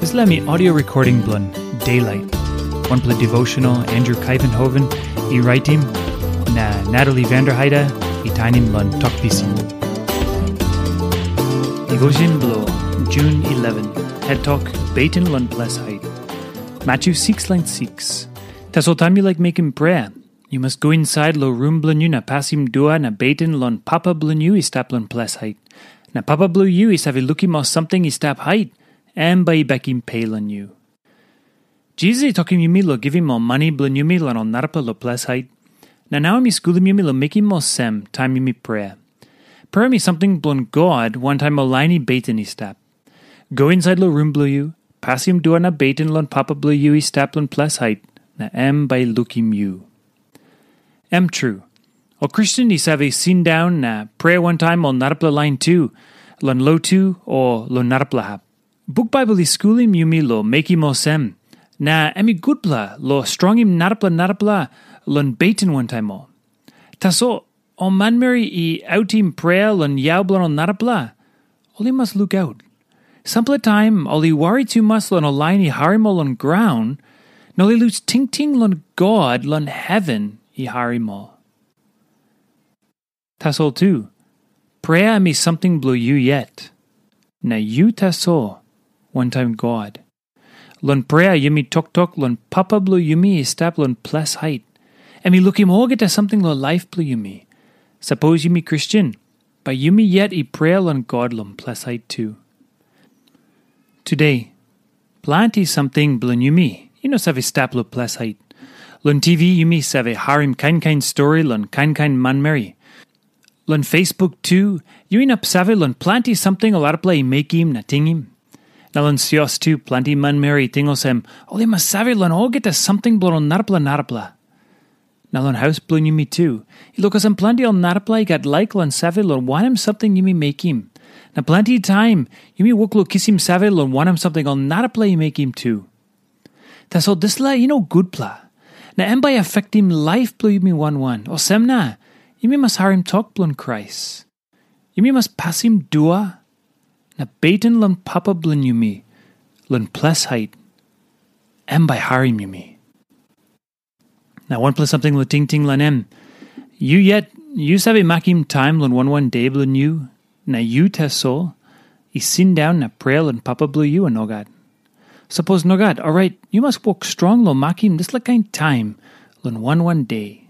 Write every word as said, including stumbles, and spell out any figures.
Dispela mi audio recording bilong Daylight, wanpela devotional Andrew Kaivenhoven i raitim, na Natalie Vanderheide i tainim long Tok Pisin. Devotion bilong June eleven, head tok, Beten long ples hait. Matthew six lain six. Tasol taim yu laik mekim prea, yu mas go insait long rum bilong yu na pasim dua na beten long Papa bilong yu i stap long ples hait. Na Papa bilong yu i save lukim ol samting i stap hait, em bai i bekim pe long yu. Jisas i tokim yumi long givim ol mani bilong yumi long ol narapela long ples hait. Na nau em i skulim yumi long mekim olsem taim yumi prea. Prea em i samting bilong God wantaim ol lain i beten i stap. Go insait long rum bilong yu, pasim dua na beten long Papa bilong yu i stap long ples hait, na em bai i lukim yu. Em tru, ol Kristen i save sindaun na prea wantaim ol narapela lain tu, long lotu o long narapela hap. Buk Baibel i skulim yumi long mekim olsem, na em i gutpela long strongim narapela narapela long beten wantaim ol. Tasol ol manmeri i autim prea long yau bilong ol narapela, ol i mas lukaut. Sampela taim ol i wari tumas long ol lain i harim ol long graun, na ol i lus tingting long God long heven i harim ol. Tasol tu, prea em i samting bilong yu yet, na yu tasol wantaim God. Long prea yumi toktok long Papa bilong yumi i stap long ples hait. Em i lukim olgeta samting long laip bilong yumi. Sapos yumi Kristen, bai yumi yet i prea long God long ples hait tu. Tude, planti samting bilong yumi i no save stap long ples hait. Long T V yumi save harim kain kain stori long kain kain manmeri. Long Facebook tu, yu inap save long planti samting ol arapela i mekim na tingim. Na long sios tu, planti manmeri i ting olsem, ol i mas save long olgeta samting bilong ol narapela narapela. Na long haus bilong yumi tu, i lukasim planti ol narapela i gat laik long save long wanem samting yumi mekim. Na planti taim, yumi wok long kisim save long wanem samting ol narapela i mekim tu. Tasol dispela i no gutpela, na em bai afektim laip bilong yumi wan wan. Olsem na, yumi mas harim tok bilong Krais. Yumi mas pasim dua na beten long Papa bilong yumi, long ples hait, em bai harim yumi. Na wanpela samting long tingting long em, yu yet, yu save makim taim long wan wan de bilong yu, na yu tasol, i sindaun na prea long Papa bilong yu, o nogat? Sapos nogat, orait yu mas wok strong long makim dispela kain taim long wan wan de.